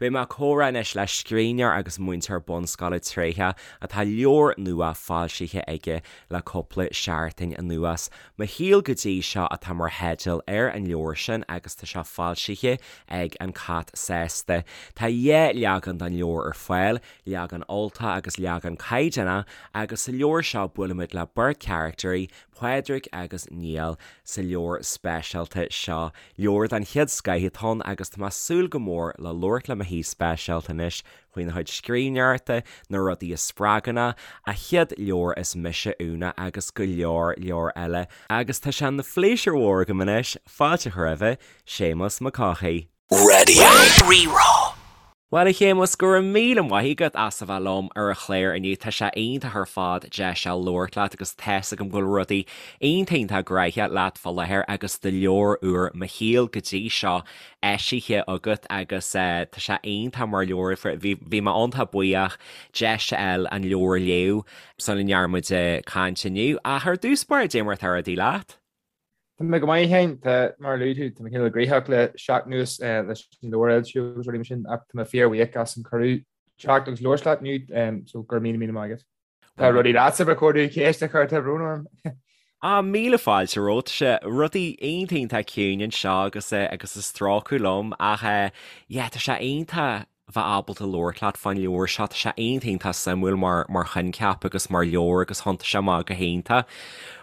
Beidh mé ag comhrá anois le scríbhneoir agus múinteoir bunscoile tréitheach atá leabhar nua foilsithe aige le cúpla seachtain anuas. Mo Shaol Go Dtí Seo atá mar theideal ar an leabhar sin agus tá sé foilsithe ag An Cat Sásta. Tá dhá leagan den leabhar ar fáil, leagan Ultach agus leagan caighdeánach agus sa leabhar seo buailimid le beirt charactairí, Pádraig agus Niall, sa leabhar speisialta seo. Leabhar den chéad scoith atá ann agus tá mé ag súil go mór le labhairt le mo haoi speisialta anois faoina chuid scríbhneoireachta, na rudaí a spreagann é, a chéad leabhar Is Mise Úna agus go leor leor eile. Agus tá sé ina phléisiúr mhór agam anois fáilte a chur roimhe, Séamus Mac Cárthaigh. Radio Rí-Rá. Bhuel, a Shéamuis, go raibh míle maith agat as a bheith liom ar an chlár inniu. Tá sé iontach ar fad deis a labhairt leat agus tá's agam go bhfuil rudaí iontach iontach gnoitheach leat fá láthair agus do leabhar úr Mo Shaol go dtí seo eisithe agat agus tá sé iontach mar leabhar. Bhí bhí mé iontach buíoch deis a fháil an leabhar a léamh sula ndearna muid caint inniu. Ach ar dtús báire, cad é mar atá rudaí leat? Tá mé go maith féin, tá, mar a luaigh tú, tá mé cineál gnoitheach le seachtain anuas leis an leabhar a fhoilsiú agus rudaí mar sin ach tá mé fíorbhuíoch as an cuireadh teacht agus labhairt leat inniu, so go raibh míle míle maith agat. Tá rudaí leatsa ba chóir domh ceist a chur, tá brón orm. Ah, míle fáilte romhat, tá sé rudaí iontach iontach ciúin anseo agus agus ag stróiceadh liom ach yeah, tá sé iontach bheith ábalta labhairt leat fán leabhar seo. Tá sé iontach iontach suimiúil mar mar choincheap agus mar leabhar agus thiontaigh sé amach go hiontach.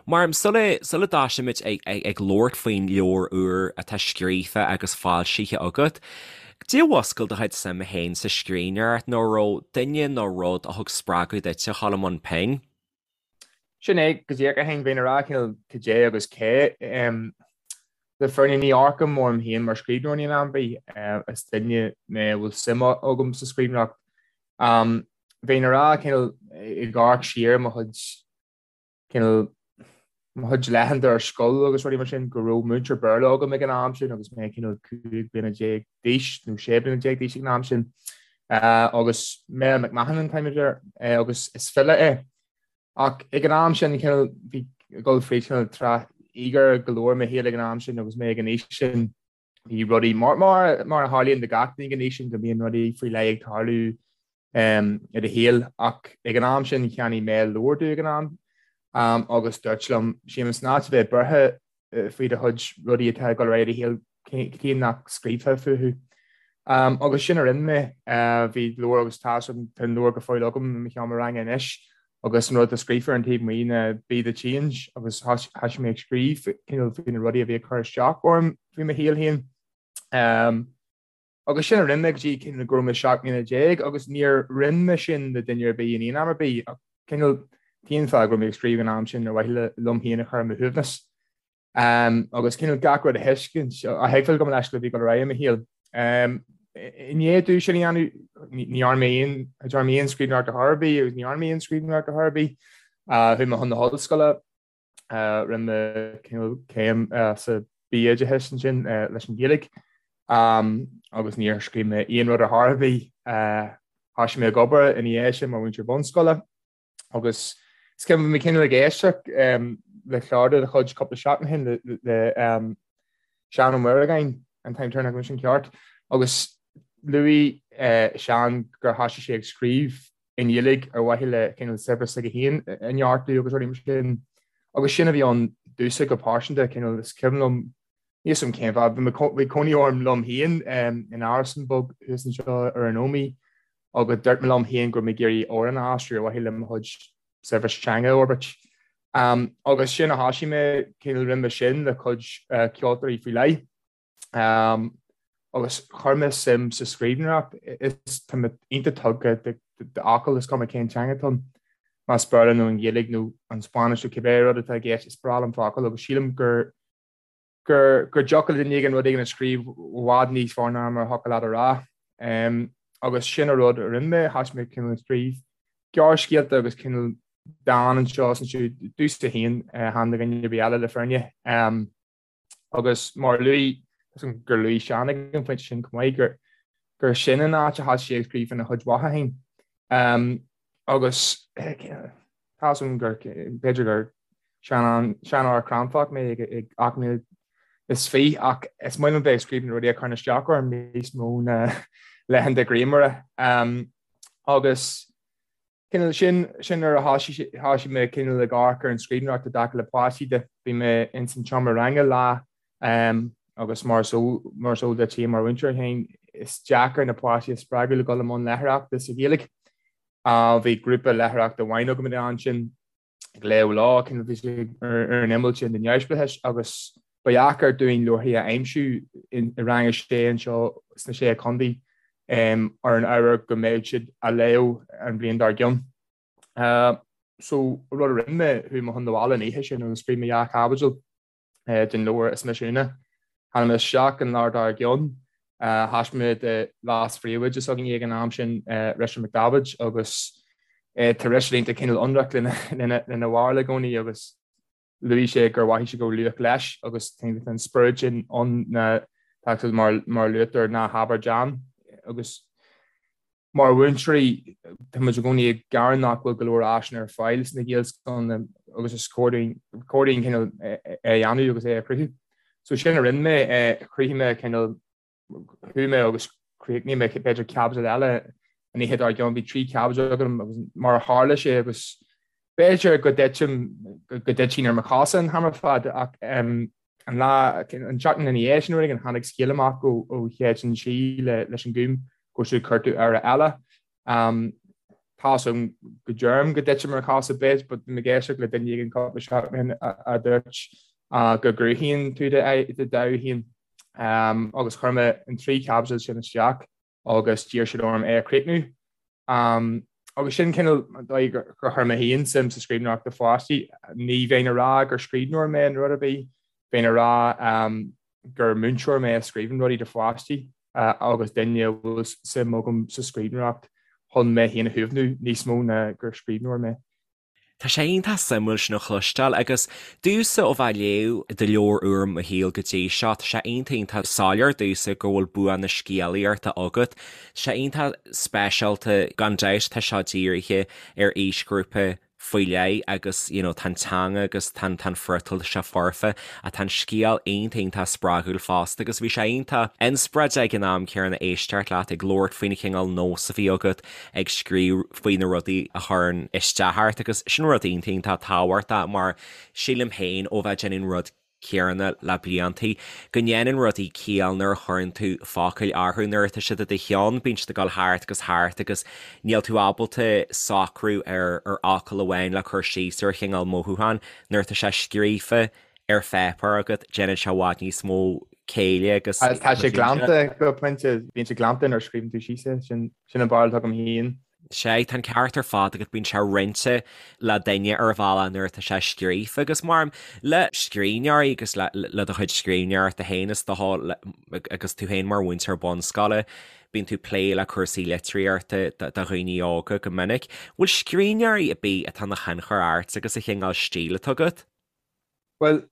Mar sula sula dtosaímid ag ag ag labhairt faoin leabhar úr atá scríofa agus foilsithe agat, cad é a mhúscail do chuid suime féin sa scríbhneoireacht nó an raibh duine nó rud a thug spreagadh duit a dhul i mbun pinn? Sin é go díreach a Sheáin, bheinn ag rá cineál cad é agus cé. Le fírinne ní amharcaim orm féin mar scríbhneoir in aon am ar bith. Is duine mé a bhfuil suim agam sa scríbhneoireacht. Bheinn ag rá cineál ag amharc siar mo chuid cineál mo chuid laethanta ar scoil agus rudaí mar sin go raibh múinteoir Béarla agam ag an am sin agus mé cineál 15 bliana d'aois nó 16 bliana d'aois ag an am sin agus Mel McMahon an t-ainm air agus is file é. Ach ag an am sin cineál bhí ag dul fríd cineál tráth íogair go leor i mo shaol ag an am sin agus mé ag an aois sin bhí rudaí mar mar mar a tharlaíonn do gach duine ag an aois sin go mbíonn rudaí faoi leith ag tarlú i do shaol ach ag an am sin cheannaigh Mel leabhar domh ag an am agus dúirt liom Séamus in áit a bheith buartha faoi do chuid rudaí atá ag dul ar aghaidh i do shaol cad chuige nach scríobhfá fúthu. Agus sin a rinne mé. Bhí leabhar agus tá an leabhar go fóill agam i mo sheomra ranga anois agus an rud atá scríofa ar an taobh amuigh ná 'Be the change' agus thosaigh mé ag scríobh cineál faoi na rudaí a bhí ag cur isteach orm faoi mo shaol féin. Agus sin a rinne mé go dtí cineál go raibh mé 17 mbliana agus níor roinn mé sin le duine ar bith in aon am ar bith ach cineál t-aon fáth go raibh mé ag scríobh an am sin ar mhaithe le liom féin a chur ar mo shuaimhneas. Agus cineál gach rud a thuiscint, a thuigbheáil gabh mo leithscéal a bhí ag dul ar aghaidh i mo shaol. I ndiaidh domh sin a dhéanamh, ní dhearna mé aon, dearna mé aon scríbhneoireacht ar chor ar bith agus ní dhearna mé aon scríbhneoireacht ar chor ar bith. Chuaigh mé chun na hollscoile, Rinne mé cineál céim sa BA Oideachas ansin leis an Ghaeilge agus níor scríobh mé aon rud ar chor ar bith. Thosaigh mé ag obair ina dhiaidh sin mar mhúinteoir bunscoile agus is cuimhin bhí mé cineál ag éisteacht le clár de do chuid cúpla seachtain ó shin le Seán Ó Muireagáin, an t-ainm deireanach anois an ceart, agus luaigh Seán gur thosaigh sé ag scríobh i nGaeilge ar mhaithe le cineál saibhreas s'aige féin a neartú agus rudaí mar sin. Agus sin a bhí ann domhsa go pearsanta, cineál is cuimhin liom, níl 'fhios a'm cén fáth, bhí cónaí orm liom féin in árasán beag thuas anseo ar an Ómaigh agus dúirt mé liom féin go raibh mé ag iarraidh amhrán a aistriú ar mhaithe le mo chuid saibhreas teanga a fhorbairt. Agus sin a thosaigh mé, cineál rinne mé sin le cuid ceoltóirí faoi leith. Agus chuir mé suim sa scríbhneoireacht. Is tá mé iontach tugtha d'fhocail, is cuma cén teanga atá ann, más Béarla nó an Ghaeilge nó an Spáinnis nó cibé rud atá i gceist, is breá liom focail agus sílim gur gur gur dtiocfadh le duine éigin rud éigin a scríobh i bhfad níos fearr ná mar a thiocfadh leat a rá. Agus sin an rud a rinne mé, thosaigh mé cineál ag scríobh gearrscéalta agus cineál dán anseo is ansiúd, domhsa féin, chan do dhuine ar bith eile le fírinne. Agus mar a luaigh, gur luaigh Seán ag an phointe sin chomh maith, gur gur sin an áit a thosaigh sé ag scríobh faoina chuid mhaithe féin. Agus tá 'fhios a'm gur, b'fhéidir gur seanfhear cráifeach mé ag 28 ach is maith liom bheith ag scríobh na rudaí a chuireann isteach orm níos mó ná Laethanta grianmhara. Agus cineál sin, sin nuair a thoisigh, thoisigh mé cineál ag amharc ar an scríbhneoireacht i dtaca le páistí de. Bhí mé ins an tseomra ranga lá agus mar is eol, mar is eol duit féin mar mhúinteoir féin, is deacair na páistí a spreagadh le dul i mbun léitheoireachta sa Ghaeilge. Bhí grúpa léitheoireachta amháin agam an ansin ag léamh leo, cineál bhí sé ar an imeall sin den neamhspleáchas agus ba dheacair dúinn leabharthaí a aimsiú i rang a sé anseo sna Sé Chontae ar an ábhar go mbeadh siad á léamh an bhliain dár gcionn. So rud a rinne mé, chuaigh mé chun na bhaile an oíche sin agus scríobh mé dhá chaibidil. den leabhar Is Mise Úna. Tháinig mé isteach an lá dár gcionn. Thaispeáin mé do leas-phríomhoide s'againne ag an am sin, Richard McDavitt, agus tá Richard iontach cineál ionraic lena bharúil i gcónaí agus luaigh sé gur mhothaigh sé go raibh luach leis agus tá an spiorad sin ann na tá mar luaitear ná habair déan agus Mar mhúinteoirí, tá muid i gcónaí ag gearán nach bhfuil go leor áiseanna ar fáil sna Gaelscoileanna agus is cóir dúinn cineál é a dhéanamh agus é a chruthú. So sin a rinne mé, chruthaigh mé cineál, chuaigh mé agus chríochnaigh mé b'fhéidir caibidil eile an oíche dár gcionn, bhí 3 chaibidil agam agus mar a tharla sé agus b'fhéidir go dtitim, go dtitfinn ar mo chosa an t-am ar fad ach An lá, an tseachtain ina dhiaidh sin, rud éigin, tháinig scéal amach ó Shéideán Sí leis an Gúm go raibh siad ag cuartú earra eile. Tá's agam go deirim go dtitim ar chosa bit, but bhí mé ag éisteacht le duine éigin cúpla seachtain ó shin a dúirt go gcruthaíonn tú do dhomhan féin. Agus chuir mé an 3 chaibidil sin isteach. agus d'iarr siad orm é a chríochnú. Agus sin cineál an dóigh gur chuir mé féin suim sa scríbhneoireacht do pháistí. Ní bheinn ag rá gur scríbhneoir mé nó rud ar bith, bheinn ag rá gur múinteoir mé a scríobhann rudaí do pháistí agus duine a bhfuil suim agam sa scríbhneoireacht chun mé féin a shuaimhniú níos mó ná gur scríbhneoir mé. Tá sé iontach suimiúil sin a chloisteáil agus domhsa ó bheith ag léamh do leabhar úr Mo Shaol go dtí seo, tá sé iontach iontach soiléir domhsa go bhfuil bua na scéalaíochta agat. Tá sé iontach speisialta, gan dabht tá seo dírithe ar aoisghrúpa faoi leith agus you know tá an teanga agus tá an tá an friotal tá sé foirfe ach tá an scéal iontach iontach spreagúil fosta agus bhí sé iontach inspioráideach ag an am céanna éisteacht leat ag labhairt faoin chineál nós a bhí agat ag scríobh faoi na rudaí a chuireann isteach ort agus sin rud iontach iontach tábhachtach mar sílim féin ó bheith ag déanamh an rud céanna le bliantaí go ndéanann rudaí ciall nuair a chuireann tú focail orthu, nuair atá siad i do cheann bíonn siad ag dul thart agus thart agus níl tú ábalta socrú ar ar fhocal amháin le cur síos ar chineál mothúchán, nuair atá sé scríofa ar pháipéar agat déanann sé i bhfad níos mó céille agus. Tá sé glanta go pointe, bíonn sé glanta nuair a scríobhann tú síos é, sin an barúil atá agam féin. Sea, tá an ceart ar fad agat, bíonn sé roinnte le duine ar bhealach nuair atá sé scríofa agus mar le scríbhneoirí agus le le do chuid scríbhneoireachta féin is dócha agus tú féin mar mhúinteoir bunscoile, bíonn tú ag plé le cúrsaí litríochta do dhaoine óga go minic. Bhfuil scríbhneoirí ar bith atá ina thionchar ort agus an chineál stíl atá agat? Bhuel,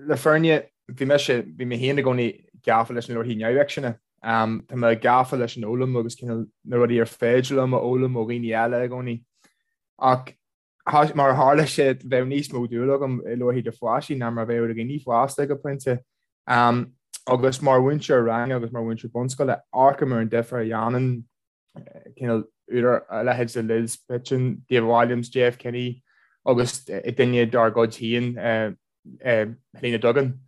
le fírinne, bhí mise, bhí mé féin i gcónaí gafa leis na leabharthaí neamhfhicsin. Tá mé gafa leis an fhoghlaim agus cineál na rudaí ar féidir liom a fhoghlaim ó dhaoine eile i gcónaí. Ach mar a tharla sé, bheadh níos mó dúil agam i leabharthaí do pháistí ná mar a bheadh do dhaoine fásta go pointe. Agus mar mhúinteoir ranga agus mar mhúinteoir bunscoile, amharcaim ar an difear a dhéanann cineál údar a leithéid de Liz Pidgeon, David Walliams, J.F. Kinney agus duine dár gcuid féin, Helena Duggan.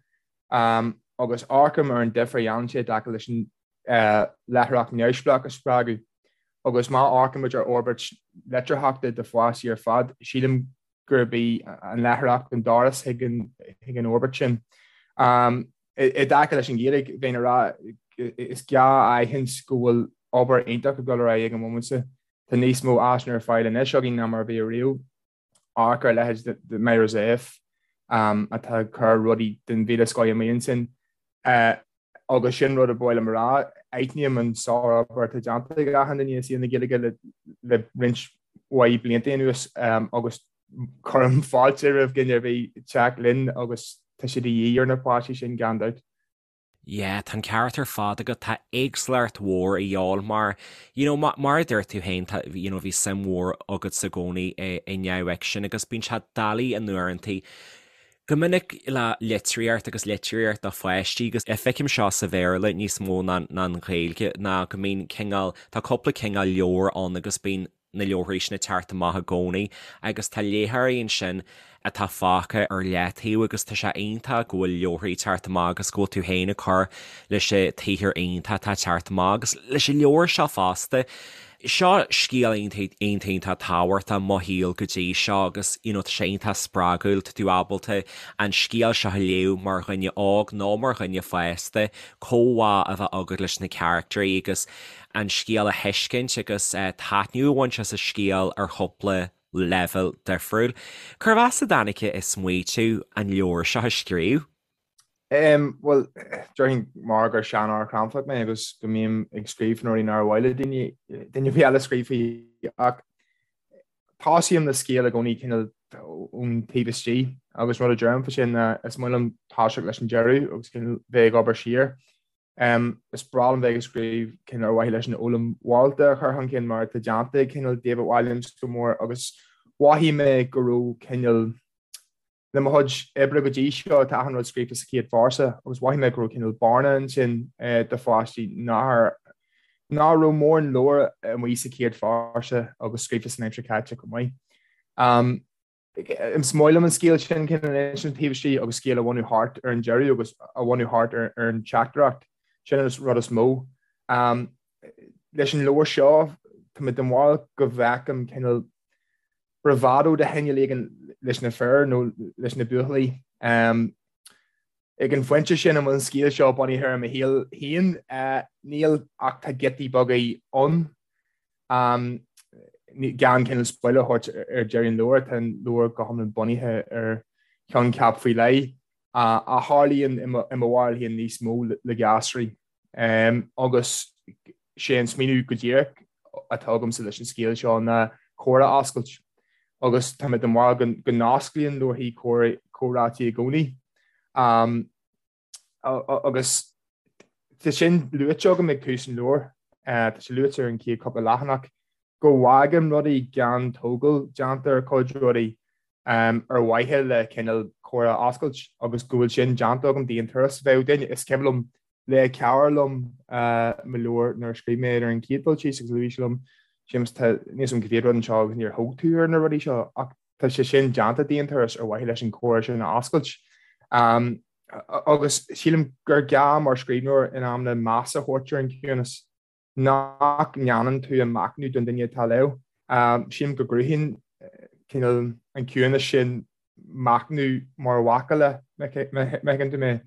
Agus amharcaim ar an difear a dhéanann sé i dtaca leis an léitheoireacht neamhspleách a spreagadh. Agus má amharcaimid ar fhorbairt litearthachta do pháistí ar fad, sílim gurb í an léitheoireacht an doras chuig an fhorbairt sin. I dtaca leis an Ghaeilge, bheinn ag rá is gá a aithint go bhfuil obair iontach ag dul ar aghaidh ag an bhomaite seo. Tá níos mó áiseanna ar fáil anois againn ná mar a bhí ariamh. Amharc ar a leithéid de Myra Zepf atá ag cur rudaí den mhíle scoth amuigh ansin. Agus sin rud a ba mhaith liom a rá, aithním an sárobair atá déanta ag achan duine i saol na Gaeilge le roinnt mhaith blianta anuas agus cuirim fáilte roimh dhuine ar bith teacht linn agus tá sé de dhíth ar na páistí sin gan dabht. Yeah, tá an ceart ar fad agat, tá éagsúlacht mhór a dhíobháil mar, you know, mar a dúirt tú féin, tá, you know, bhí suim mhór agatsa i gcónaí i neamhfhicsean agus bíonn sé doiligh in uaireantaí. Go minic le litríocht agus litríocht do pháistí, agus feicim seo sa Bhéarla níos mó ná an Ghaeilge, ná go mbíonn cineál, tá cúpla cineál leabhar ann agus bíonn na leabharthaí sin ag teacht amach i gcónaí agus tá léitheoirí ansin atá fágtha ar leataobh agus tá sé iontach go bhfuil leabharthaí ag teacht amach agus go bhfuil tú féin ag cur leis an tsaothar iontach atá ag teacht amach agus leis an leabhar seo fosta. Seo scéal iontach iontach tábhachtach mo shaol go dtí seo agus you know tá sé iontach spreagúil, tá tú ábalta an scéal seo a léamh mar dhuine óg nó mar dhuine fásta, comhbhá a bheith agat leis na caractairí agus an scéal a thuiscint agus taitneamh a bhaint as an scéal ar chúpla leibhéal difriúil. Cérbh as a dtáinig an smaoitiú an leabhar seo a scríobh? Bhuel, déarfainn mar gur seanfhear cranfach mé agus go mbím ag scríobh faoi na rudaí nár mhaith le daoine, duine ar bith eile scríobh faoi ach tosaím le scéal i gcónaí cineál ón taobh istigh agus rud a deirim faoi sin ná is maith liom toiseacht leis an deireadh agus cineál bheith ag obair siar. Is breá liom bheith ag scríobh cineál ar mhaithe leis an fhoghlaim mhorálta a chur chun cinn mar atá déanta ag cineál David Walliams go mór agus mhothaigh mé go raibh cineál Le mo chuid oibre go dtí seo, tá achan rud scríofa sa chéad phearsa agus mhothaigh mé go raibh cineál bearna ansin do pháistí nach raibh mórán leabhar amuigh sa chéad phearsa agus scríofa san aimsir chaite chomh maith. Is maith liom an scéal sin cineál a insint taobh istigh agus scéal a bhunú thart ar an deireadh agus a bhunú thart ar an teachtaireacht. Sin an rud is mó. Leis an leabhar seo, tá mé den bharúil go bhfeicim cineál bravado de chineál éigin leis na fir nó leis na buachaillí. Ag an phointe sin, an bhfuil an scéal seo bunaithe ar mo shaol féin? Níl, ach tá giotaí beaga ann. Gan cineál spoiler a thabhairt ar deireadh an leabhair, tá an leabhar go hiomlán bunaithe ar choincheap faoi leith a tharlaíonn i mo bharúil féin níos mó le gasraí. Agus sé an smaoineamh go díreach atá agamsa leis an scéal seo ná comhrá a oscailt. Agus tá mé den bharúil go n-osclaíonn leabharthaí comhráití i gcónaí. Agus tá sin luaite agam ag tús an leabhair, tá sé luaite ar an chéad cúpla leathanach, go bhfágaim rudaí gan tógáil déanta ar chuid rudaí ar mhaithe le cineál comhrá a oscailt agus go bhfuil sin déanta agam d'aon turas. Bheadh duine, is cuimhin liom, léigh cara liom mo leabhar nuair a scríobh mé ar an chéad dul síos agus luaigh sé liom, Séamus, tá, níl a fhios agam cá mhéad rud anseo agus níor thóg tú ar na rudaí seo ach tá sé sin déanta d'aon turas ar mhaithe leis an comhrá sin a oscailt. Agus sílim gur gá mar scríbhneoir in amanna meas a thabhairt ar an gciúnas. nach ndéanann tú an machnamh don duine atá ag léamh. Sílim go gcruthaíonn cineál an ciúnas sin machnamh mar mhacalla, má thuigeann tú mé.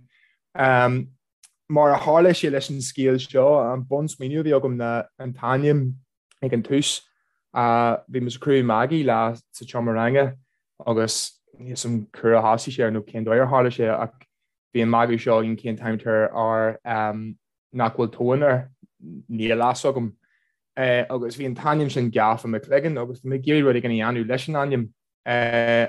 Mar a tharla sé leis an scéal seo, an bunsmaoineamh a bhí agam ná an t-ainm ag an tús. Bhí muid ag cruthú magaidh lá sa tseomra ranga agus níl a fhios agam cá huair a thosaigh sé nó cén dóigh ar tharla sé ach bhí an magadh seo againn cén t-ainm atá ar nach bhfuil tóin air, níl a fhios agam. Agus bhí an t-ainm sin gafa i mo chloigeann agus bhí mé ag iarraidh rud éigin a dhéanamh leis an ainm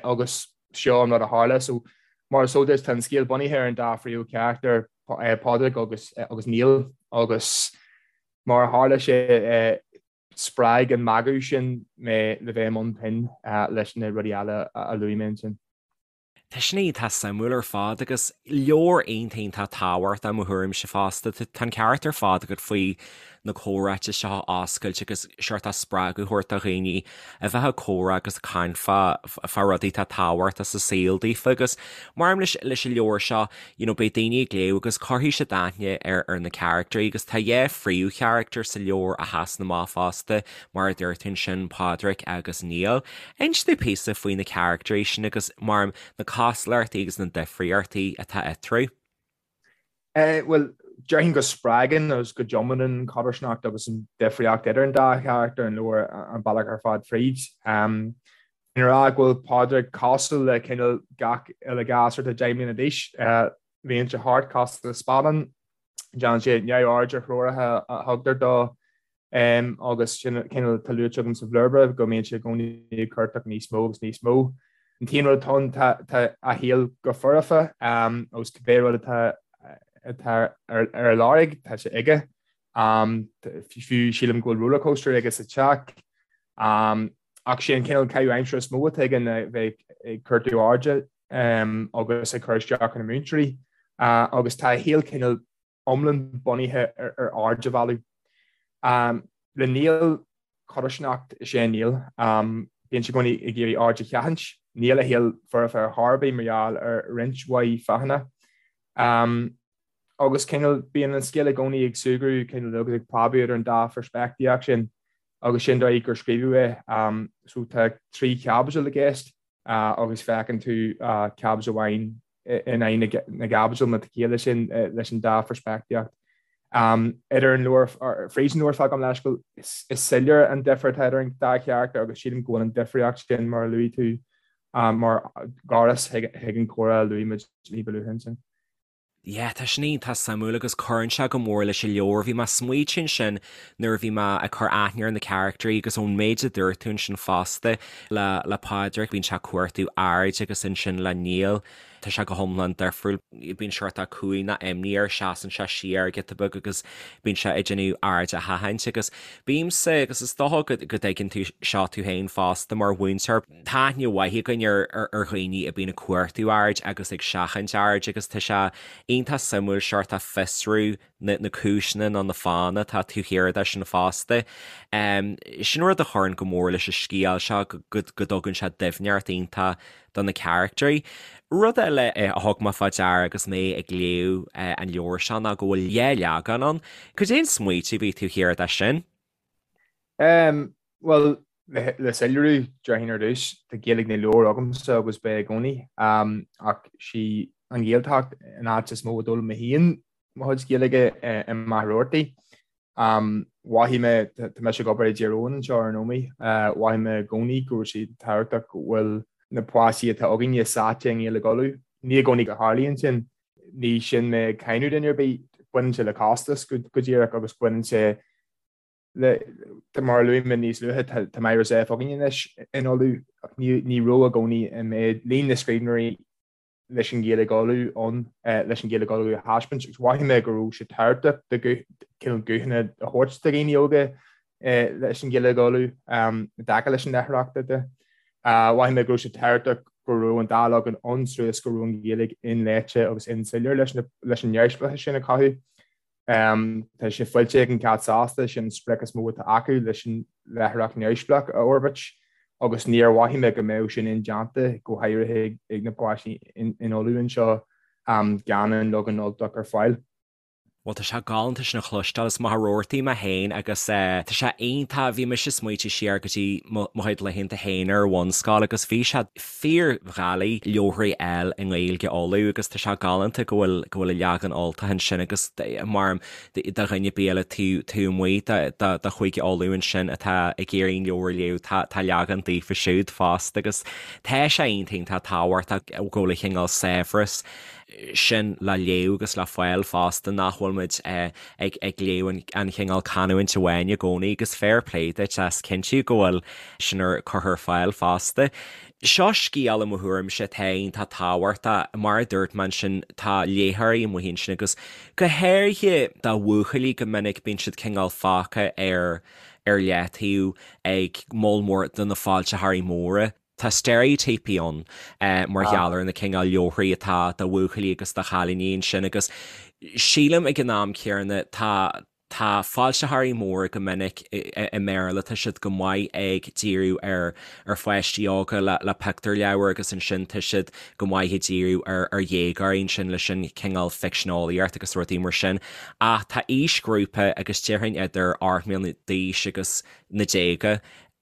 agus seo an rud a tharla. So mar is eol duit, tá an scéal bunaithe ar an dá phríomhcharachtar, Pádraig agus agus Niall agus mar a tharla sé spreag an magadh sin mé le bheith i mbun pinn leis na rudaí eile a luaigh mé ansin. Tá sin iontach suimiúil ar fad agus leabhar iontach iontach tábhachtach i mo thuairimse fosta. Tá an ceart ar fad agat faoi na comhráite seo a oscailt agus seort spreagadh a thabhairt do dhaoine a bheith ag comhrá agus ag caint fá fá rudaí atá tábhachtach sa saol daofa agus maram leis leis an leabhar seo you know beidh daoine ag léamh agus cuirfidh siad aithne ar ar na caractairí agus tá dhá phríomhcharachtar sa leabhar a sheasann amach fosta mar a dúirt tú ansin Pádraic agus Niall. Inis domh píosa faoi na caractairí sin agus, maram, na cosúlachtaí agus na difríochtaí atá eatarthu. Bhuel, déarfainn go spreagann agus go dtiomáineann an chodarsnacht agus an difríocht idir an dá charachtar an leabhar an bealach ar fad fríd. Bheinn ag rá go bhfuil Pádraig cosúil le cineál gach uile ghasúr atá 10 mbliana d'aois. Luíonn sé thart cosúil le spadán. Déanann sé neamhaird ar threoracha a thugtar dó agus sin cineál atá luaite agam sa bhlurba go mbíonn sé i gcónaí ag cuartach níos mó agus níos mó. An t-aon rud atá ann tá a shaol go foirfe agus cibé rud atá atá ar a lorg tá sé aige. Fiú sílim go bhfuil rollercoaster aige sa teach. Ach sé an cineál caitheamh aimsire is mó atá aige ná bheith ag cuartú airde. agus ag cur isteach ar na múinteoirí agus tá a shaol cineál iomlán bunaithe ar aird a mhealladh. Le Niall, codarsnacht is ea Niall. Bíonn sé i gcónaí ag iarraidh aird a sheachaint. Níl a shaol foirfe ar chor ar bith mar gheall ar roinnt mhaith fáthanna. Agus cineál bíonn an scéal i gcónaí ag súgradh cineál agus ag preabadh idir an dá pheirspictíocht sin agus sin dóigh gur scríobhadh é. So tá 3 chaibidil i gceist agus feiceann tú caibidil amháin in aghaidh na gcaibidil má tá ciall leis sin leis an dá pheirspictíocht. Idir an leabhar, fríd an leabhar fad gabh mo leithscéal, is soiléir an difear atá idir an dá charachtar agus sílim go bhfuil an difríocht sin mar a luaigh tú mar dhoras chuig an chomhrá a luaigh muid ní ba luaithe ansin. Yeah, tá sin iontach suimiúil agus cuireann sé go mór leis an leabhar. Bhí mé ag smaoitiú ansin nuair a bhí mé ag cur aithne ar na caractairí agus ón méid a dúirt tú ansin fosta le le Pádraig, bíonn sé ag cuartú aird agus ansin le Niall, tá sé go hiomlán difriúil. Bíonn seort cumhaidh nó imní air, seasann sé siar giota beag agus bíonn sé ag déanamh aird a sheachaint agus bímse, agus is dócha go go dtuigeann tú seo tú féin fosta mar mhúinteoir, Tá aithne mhaith againn ar dhaoine a bíonn ag cuartú aird agus ag seachaint aird agus tá sé iontach suimiúil seort a fiosrú na cúiseanna nó na fáthanna atá taobh thiar de sin fosta. Sin rud a chuireann go mór leis an scéal seo go dtugann sé doimhneacht iontach do na caractairí. Rud eile a thug mé fá deara agus mé ag léamh an leabhair seo ná go bhfuil dhá leagan ann. Cad é an smaoitiú a bhí taobh thiar de sin? Bhuel, le soiléiriú, déarfainn ar dtús, tá Gaeilge na leabhar agamsa agus beidh i gcónaí, ach sí an Ghaeltacht an áit is mó a d'fhoghlaim mé féin mo chuid Gaeilge i Machaire Rabhartaigh. Mhothaigh mé, tá mise ag obair i dTír Eoghain anseo ar ndóigh, mhothaigh mé i gcónaí go raibh sé tábhachtach go bhfuil na páistí atá againne sáite i nGaeilge Uladh. Ní i gcónaí a tharlaíonn sin, ní sin mé ag cáineadh duine ar bith, baineann sé le costas go díreach agus baineann sé le, mar a luaigh mé níos luaithe, tá Myra Zepf againn anois in Uladh ach ní raibh i gcónaí an méid, líon na scríbhneoirí leis an Ghaeilge Uladh ann leis an Ghaeilge Uladh a thaispeáint agus mhothaigh mé go raibh sé tábhachtach do cineál guthanna a thabhairt do dhaoine óga leis an Ghaeilge Uladh i dtaca leis an léitheoireacht de. Mhothaigh mé go raibh sé tábhachtach go raibh an dá leagan ann suas go raibh an Ghaeilge inléite agus insoiléir leis an neamhspleáchas sin a chothú. Tá sé foilsithe ag An Cat Sásta, sin an sprioc is mó atá acu leis an léitheoireacht neamhspleách a fhorbairt agus níor mhothaigh mé go mbeadh sin indéanta, go háirithe ag na páistí in Uladh anseo, gan an leagan Ultach ar fáil. Bhuel, tá sé galánta sin a chloisteáil. As Machaire Rabhartaigh mé féin agus tá sé iontach, bhí mise ag smaoitiú siar go dtí mo chuid laethanta féin ar bhunscoil agus bhí sé fíordhoiligh leabharthaí a fháil i nGaeilge Uladh agus tá sé galánta go bhfuil go bhfuil an leagan Ultach ansin agus mar do dhuine ar bith eile taobh taobh amuigh de de Chúige Uladh ansin atá ag iarraidh an leabhar a léamh tá tá leagan daofa siúd fosta agus tá sé iontach iontach tábhachtach go bhfuil an chineál saibhreas sin le léamh agus le fáil fosta nach bhfuil muid ag ag léamh an chineál canúint amháin i gcónaí agus fair play duit as cinntiú go bhfuil sin ar curtha ar fáil fosta. Seo scéal i mo thuairimse atá iontach tábhachtach, mar a dúirt mé ansin tá léitheoirí amuigh ansin agus go háirithe do bhuachaillí go minic bíonn siad cineál fágtha ar ar leataobh ag moll mór de na foilsitheoirí móra. Tá steiréitíopaí ann mar gheall ar na cineál leabharthaí atá do bhuachaillí agus do chailíní ansin agus sílim ag an am céanna tá tá foilsitheoirí móra go minic i mBéarla, tá siad go maith ag díriú ar ar pháistí óga le le pictiúrleabhair agus ansin tá siad go maith ag díriú ar ar dhéagóirí ansin leis an cineál ficseaneolaíocht agus rudaí mar sin. Ach tá aoisghrúpa agus déarfainn idir 8 mbliana d'aois agus na déaga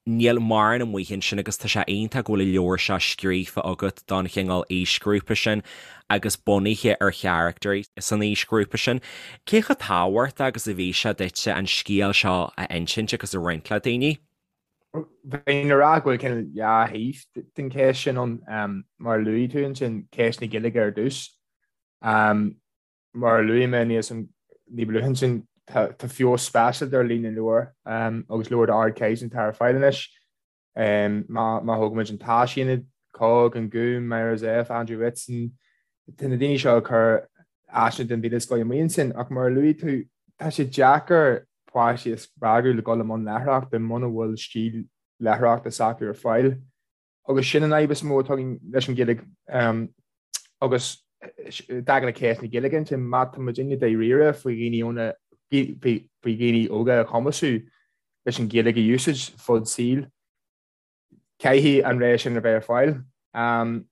Níl mórán amuigh ansin agus tá sé iontach go bhfuil an leabhar seo scríofa agat don chineál aoisghrúpa sin agus bunaithe ar charactairí san aoisghrúpa sin. Cé chomh tábhachtach agus a bhí sé duitse an scéal seo a insint agus a roinnt le daoine? Bheinn ag rá go bhfuil cineál dhá thaobh den cheist sin ann. Mar a luaigh tú ansin, ceist na Gaeilge ar dtús. Mar a luaigh mé níos ní ba luaithe ansin, tá feabhas speisialta ar líon na leabhar agus leabhair d'ardchaighdeán atá ar fáil anois. Má thógaimid an tÁisaonad, COGG, An Gúm, Myra Zepf, Andrew Whitson, tá na daoine seo ag cur áiseanna den mhíle scoth amuigh ansin. Ach mar a luaigh tú, tá sé deacair páistí a spreagadh le dul i mbun léitheoireachta muna bhfuil stíl léitheoireachta s'acu ar fáil. Agus sin an fhadhb is mó atá againn leis an Ghaeilge. Agus i dtaca le ceist na Gaeilge ansin, má tá muidinne dáiríre faoi dhaoine óna, faoi dhaoine óga a chumasú leis an Ghaeilge a úsáid fud saoil, caithfidh an rogha sin a bheith ar fáil.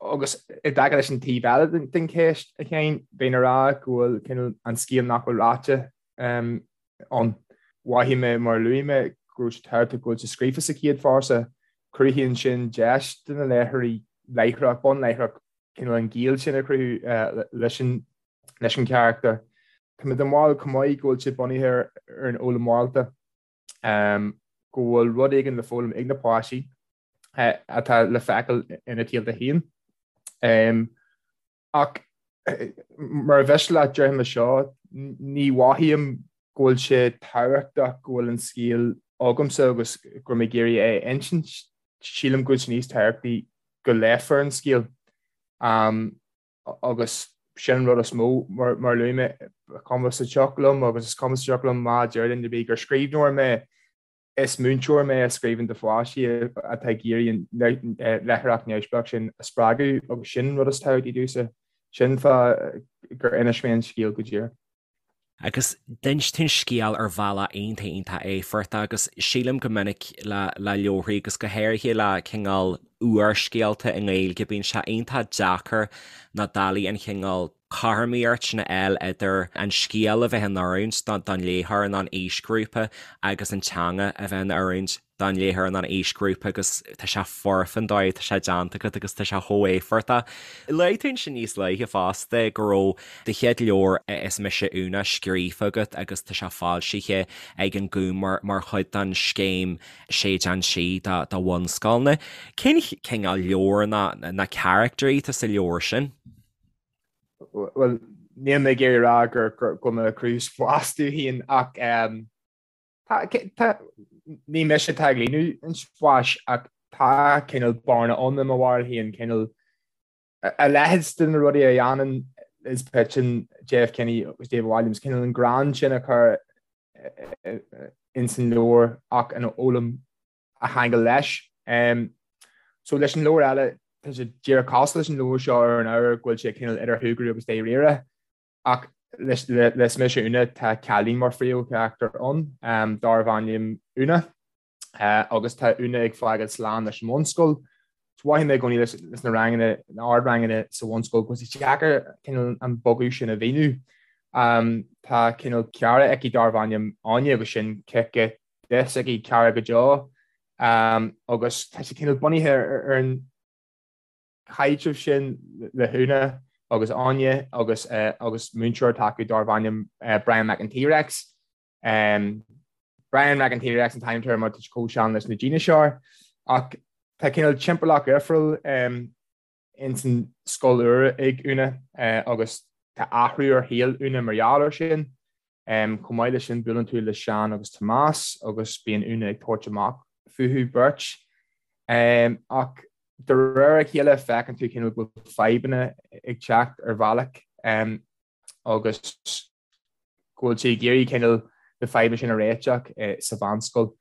Agus i dtaca leis an taobh eile den cheist, a Sheáin, bheinn ag rá go bhfuil cineál an scéal nach bhfuil ráite ann. Mhothaigh mé, mar a luaigh mé, go raibh sé tábhachtach go bhfuil sé scríofa sa chéad phearsa. Cruthaíonn sin deis do na léitheoirí láithreach, bonn láithreach, cineál an gaol sin a chruthú leis an leis an charachtar. Tá mé den bharúil chomh maith go bhfuil sé bunaithe ar an fhoghlaim mhorálta, go bhfuil rud éigin le foghlaim ag na páistí atá le feiceáil ina saolta féin. Ach mar a mhiste leat, déarfaidh mé seo, ní mhothaím go bhfuil sé tábhachtach go bhfuil an scéal agamsa agus go raibh mé ag iarraidh é a insint. Sílim go bhfuil sé níos tábhachtaí go léifear an scéal. Agus sin an rud is mó, mar a luaigh mé, cuma sa tsioc liom agus is cuma sa tsioc liom má deir duine ar bith gur scríbhneoir mé, Is múinteoir mé a scríobhann do pháistí atá ag iarraidh an léitheoireacht neamhspleách sin a spreagadh agus sin an rud is tábhachtaí domhsa. Sin fáth gur inis mé an scéal go díreach. Agus d'inis tú an scéal ar bhealach iontach iontach éifeachtach agus sílim go minic le le leabharthaí agus go háirithe le cineál úrscéalta i nGaeilge bíonn sé iontach deacair na dálaí an chineál cothromaíocht sin a fháil idir an scéal a bheith in oiriúint don léitheoir nó an aoisghrúpa agus an teanga a bheith in oiriúint don léitheoir nó an aoisghrúpa agus tá sé foirfe an dóigh atá sé déanta agat agus tá sé chomh éifeachtach. Luaigh tú ansin níos luaithe fosta go raibh do chéad leabhar Is Mise Úna scríofa agat agus tá sé foilsithe ag an Gúm mar chuid den scéim Séideán Sí do bhunscoileanna. Cén cineál leabhar nó na caractairí atá sa leabhar sin? Bhuel, níl mé ag iarraidh a rá gur go bhfuil mé ag cruthú spás domh féin ach tá, ní mise atá ag líonadh an spáis ach tá cineál bearna ann i mo bharúil féin, cineál a leithéid de na rudaí a dhéanann Liz Pidgeon, Jeff Kinney agus David Walliams, cineál an greann sin a chur ins an leabhar ach an fhoghlaim a cheangal leis. So leis an leabhar eile, tá sé díreach cosúil leis an leabhar seo ar an ábhar go bhfuil sé cineál idir shúgradh agus dáiríre, ach le Is Mise Úna tá cailín mar phríomhcharachtar ann, darbh ainm Úna, agus tá Úna ag fágáil slán leis an mbunscoil. So mhothaigh mé i gcónaí leis na ranganna, na ardranganna sa bhunscoil go bhfuil sé deacair cineál an bogadh sin a mhíniú. Tá cineál cara aici darbh ainm Áine agus sin cice di s'aici cara go deo agus tá sé cineál bunaithe ar an chaidreamh sin le hÚna agus Áine agus agus múinteoir atá acu darbh ainm Brian Mac an T-Rex. Brian Mac an T-Rex an t-ainm atá air mar tá sé chomh sean leis na díneasáir ach tá cineál timpeallacht dhifriúil ins an scoil úr ag Úna agus tá athrú ar shaol Úna mar gheall air sin. Chomh maith leis sin buaileann tú le Seán agus Tomás agus bíonn Úna ag tabhairt amach fúthu beirt. Ach de réir a chéile feiceann tú cineál go bhfuil fadhbanna ag teacht ar bhealach agus go bhfuil sí ag iarraidh cineál na fadhbanna sin a réiteach sa mheánscoil.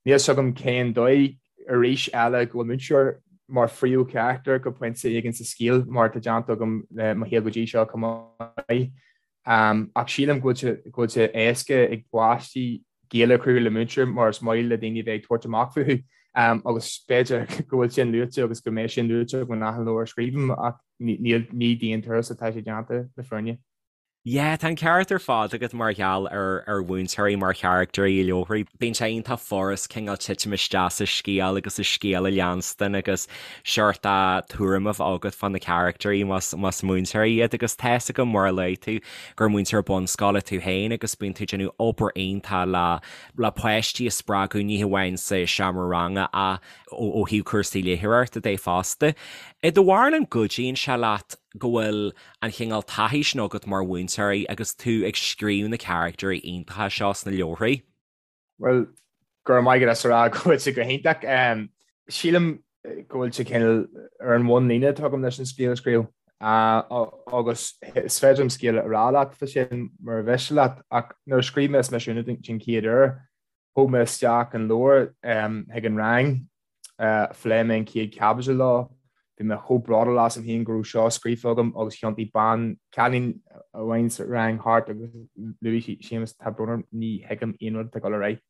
Níl fhios agam cén dóigh, arís eile, go bhfuil múinteoir mar phríomhcharachtar go pointe éigin sa scéal, mar atá déanta agam le Mo Shaol Go Dtí Seo chomh maith. Ach sílim go bhfuil sé éasca ag páistí gaol a chruthú le múinteoir mar is maith le daoine a bheith ag tabhairt amach fúthu. Agus b'fhéidir go bhfuil sin luaite agus go mbeidh sin luaite agam in achan leabhar a scríobhaim ach ní d'aon turas atá sé déanta le fírinne. Yeah, tá an ceart ar fad agat mar gheall ar ar mhúinteoirí mar charactairí i leabharthaí. Bíonn sé iontach furast cineál titim isteach sa scéal agus sa scéal a leanstan agus seort tuairim a bheith agat fá na caractairí más más múinteoirí iad agus tá fhios agam mar a luaigh tú gur múinteoir bunscoile tú féin agus bíonn tú ag déanamh obair iontach le le páistí a spreagadh ní hamháin sa seomra ranga ach ó thaobh cúrsaí léitheoireachta de fosta. I do bharúil an gcuidíonn sé leat go bhfuil an chineál taithí sin agat mar mhúinteoir agus tú ag scríobh na caractairí iontacha seo sna leabharthaí? Bhuel, go raibh maith agat as a rá go bhfuil sé go hiontach. Sílim go bhfuil sé cineál ar an bhunlíne atá agam leis an scéal a scríobh agus is féidir liom scéal a rá leat fá sin mura mhiste leat ach nuair a scríobh mé Is Mise Úna den chéad uair, thóg mé isteach an leabhar chuig an rang Phléigh mé an chéad chaibidil leo. Bhí mé chomh bródúil asam féin go raibh seo scríofa agam agus thiontaigh bean, cailín amháin sa rang thart agus luaigh sí, Séamus, tá brón orm, ní thuigim aon rud atá ag dul ar aghaidh.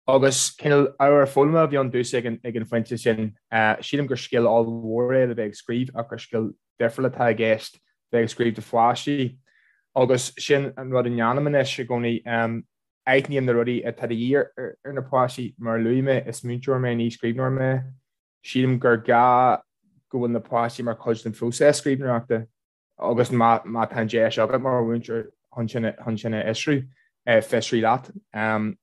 Agus cineál ábhar foghlama a bhí ann domhsa ag an ag an phointe sin. Sílim gur scil ollmhór é le bheith ag scríobh ach gur scil difriúil atá i gceist bheith ag scríobh do pháistí. Agus sin an rud a ndéanaim anois i gcónaí. Aithním na rudaí atá de dhíth ar na páistí. Mar a luaigh mé, is múinteoir mé, ní scríbhneoir mé. Sílim gur gá go bhfuil na páistí mar chuid den phróiseas scríbhneoireachta agus má tá an deis agat mar mhúinteoir chun sin chun sin a fhiosrú, fiosraigh leat.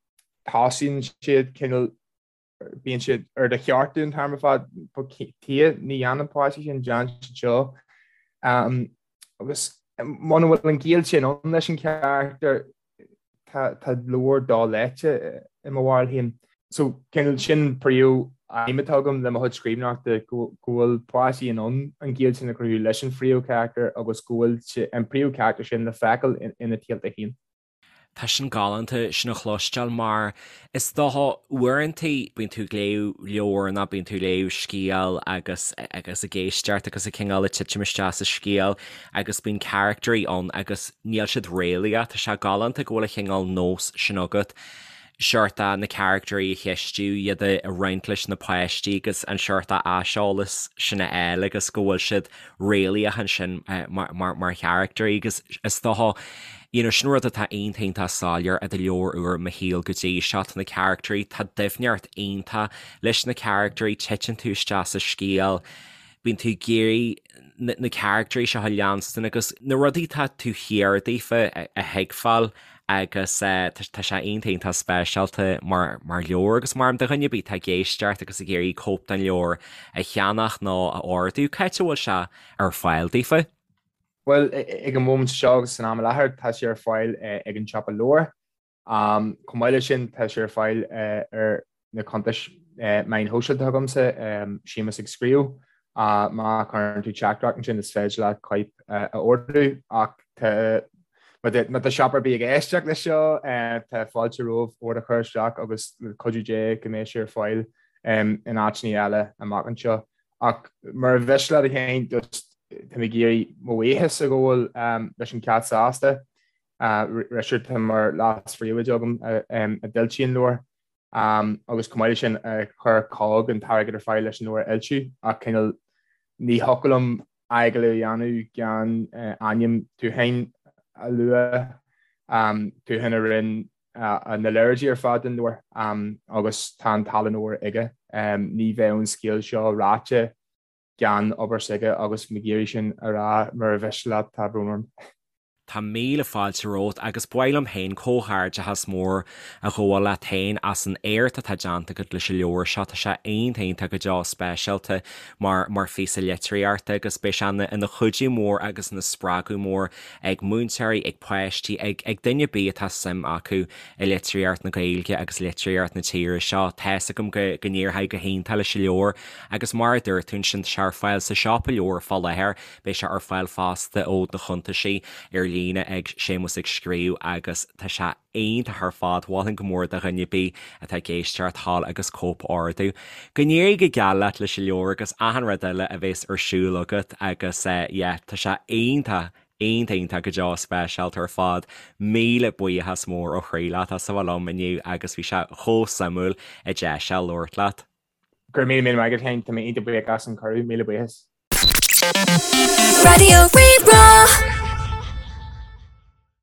Tosaíonn siad cineál, bíonn siad ar do cheartú an t-am ar fad, tuige, ní dhéanann páistí sin, déan siad seo. Agus muna bhfuil an gaol sin ann leis an charachtar, tá leabhar doléite i mo bharúil féin. So cineál sin príomh aidhm atá agam le mo chuid scríbhneoireachta, go bhfuil páistí in ann an gaol sin a chruthú leis an phríomhcharachtar agus go bhfuil an príomhcharachtar sin le feiceáil ina tsaolta féin. Tá sin galánta sin a chloisteáil mar is dócha uaireanta bíonn tú ag léamh leabhar nó bíonn tú ag léamh scéal agus agus ag éisteacht agus ag cineál ag titim isteach sa scéal agus bíonn caractairí ann agus níl siad réalaíoch. Tá sé galánta go bhfuil an chineál nós sin agat seort na caractairí a cheistiú, iad a roinnt leis na páistí agus an seort aiseolas sin a fháil agus go bhfuil siad réalaíoch ansin mar charactairí agus is dócha you know sin rud atá iontach iontach soiléir i do leabhar úr Mo Shaol go dtí seo, tá na caractairí, tá doimhneacht iontach leis na caractairí, titeann tú isteach sa scéal, bíonn tú ag iarraidh na caractairí seo a leanstan agus na rudaí atá taobh thiar daofa a thuigbheáil agus tá sé iontach iontach speisialta mar mar leabhar agus mar do dhuine ar bith atá ag éisteacht agus ag iarraidh cóip den leabhar a cheannach nó a ordú, cá háit a bhfuil sé ar fáil daofa? Bhuel, ag an móimint seo agus san am i láthair, tá sé ar fáil ag an siopa leabhar. Chomh maith leis sin, tá sé ar fáil ar na cuntais meáin shóisialta agamsa, Séamus ag Scríobh. Má chuireann tú teachtaireacht ansin, is féidir leat cóip a ordú. Ach má tá siopa ar bith ag éisteacht leis seo, tá fáilte romhaibh ord a chur isteach agus le cuidiú Dé go mbeidh sé ar fáil in áiteanna eile amach anseo. Ach mura mhiste leat a Sheáin, just tá mé ag iarraidh mo bhuíochas a ghabháil leis an Cat Sásta. Richard atá mar leas-phríomhoide agam a d'fhoilsigh an leabhar agus chomh maith leis sin a chuir cogg an t-airgead ar fáil leis an leabhar a fhoilsiú ach cineál ní thiocfadh liom agallamh a dhéanamh gan ainm Tuatháin a lua, Tuathán a rinne na léaráidí ar fad don leabhar agus tá an tallann óir aige. Ní bheadh an scéal seo ráite gan obair s'aige agus mé ag iarraidh sin a rá mura mhiste leat, tá brón orm. Tá míle fáilte romhat agus ba mhaith liom féin comhghairdeachas mór a ghabháil leat féin as an éacht atá déanta agat leis an leabhar seo. Tá sé iontach iontach go deo speisialta mar mar phíosa litríochta agus beidh sé ina ina chuidiú mór agus ina spreagadh mór ag múinteoirí, ag páistí, ag ag duine ar bith atá suim acu i litríocht na Gaeilge agus litríocht na tíre seo. Tá's agam go go n-éireoidh go hiontach leis an leabhar agus mar a dúirt tú ansin tá sé ar fáil sa siopa leabhar fá láthair, beidh sé ar fáil fosta ó do chuntaisí ar líne ag Séamus ag Scríobh agus tá sé iontach ar fad, mholfainn go mór do dhuine ar bith atá ag éisteacht dhul agus cóip a ordú. Go n-éirí go geal leat leis an leabhar agus achan rud eile a bhéas ar siúl agat agus yeah tá sé iontach Iontach iontach go deo speisialta ar fad. Míle buíochas mór ó chroí leat as a bheith liom inniu agus bhí sé chomh suimiúil an deis seo labhairt leat. Go raibh míle míle maith agat féin, tá mé iontach buíoch as an cuireadh, míle buíochas. Raidió Rí-Rá.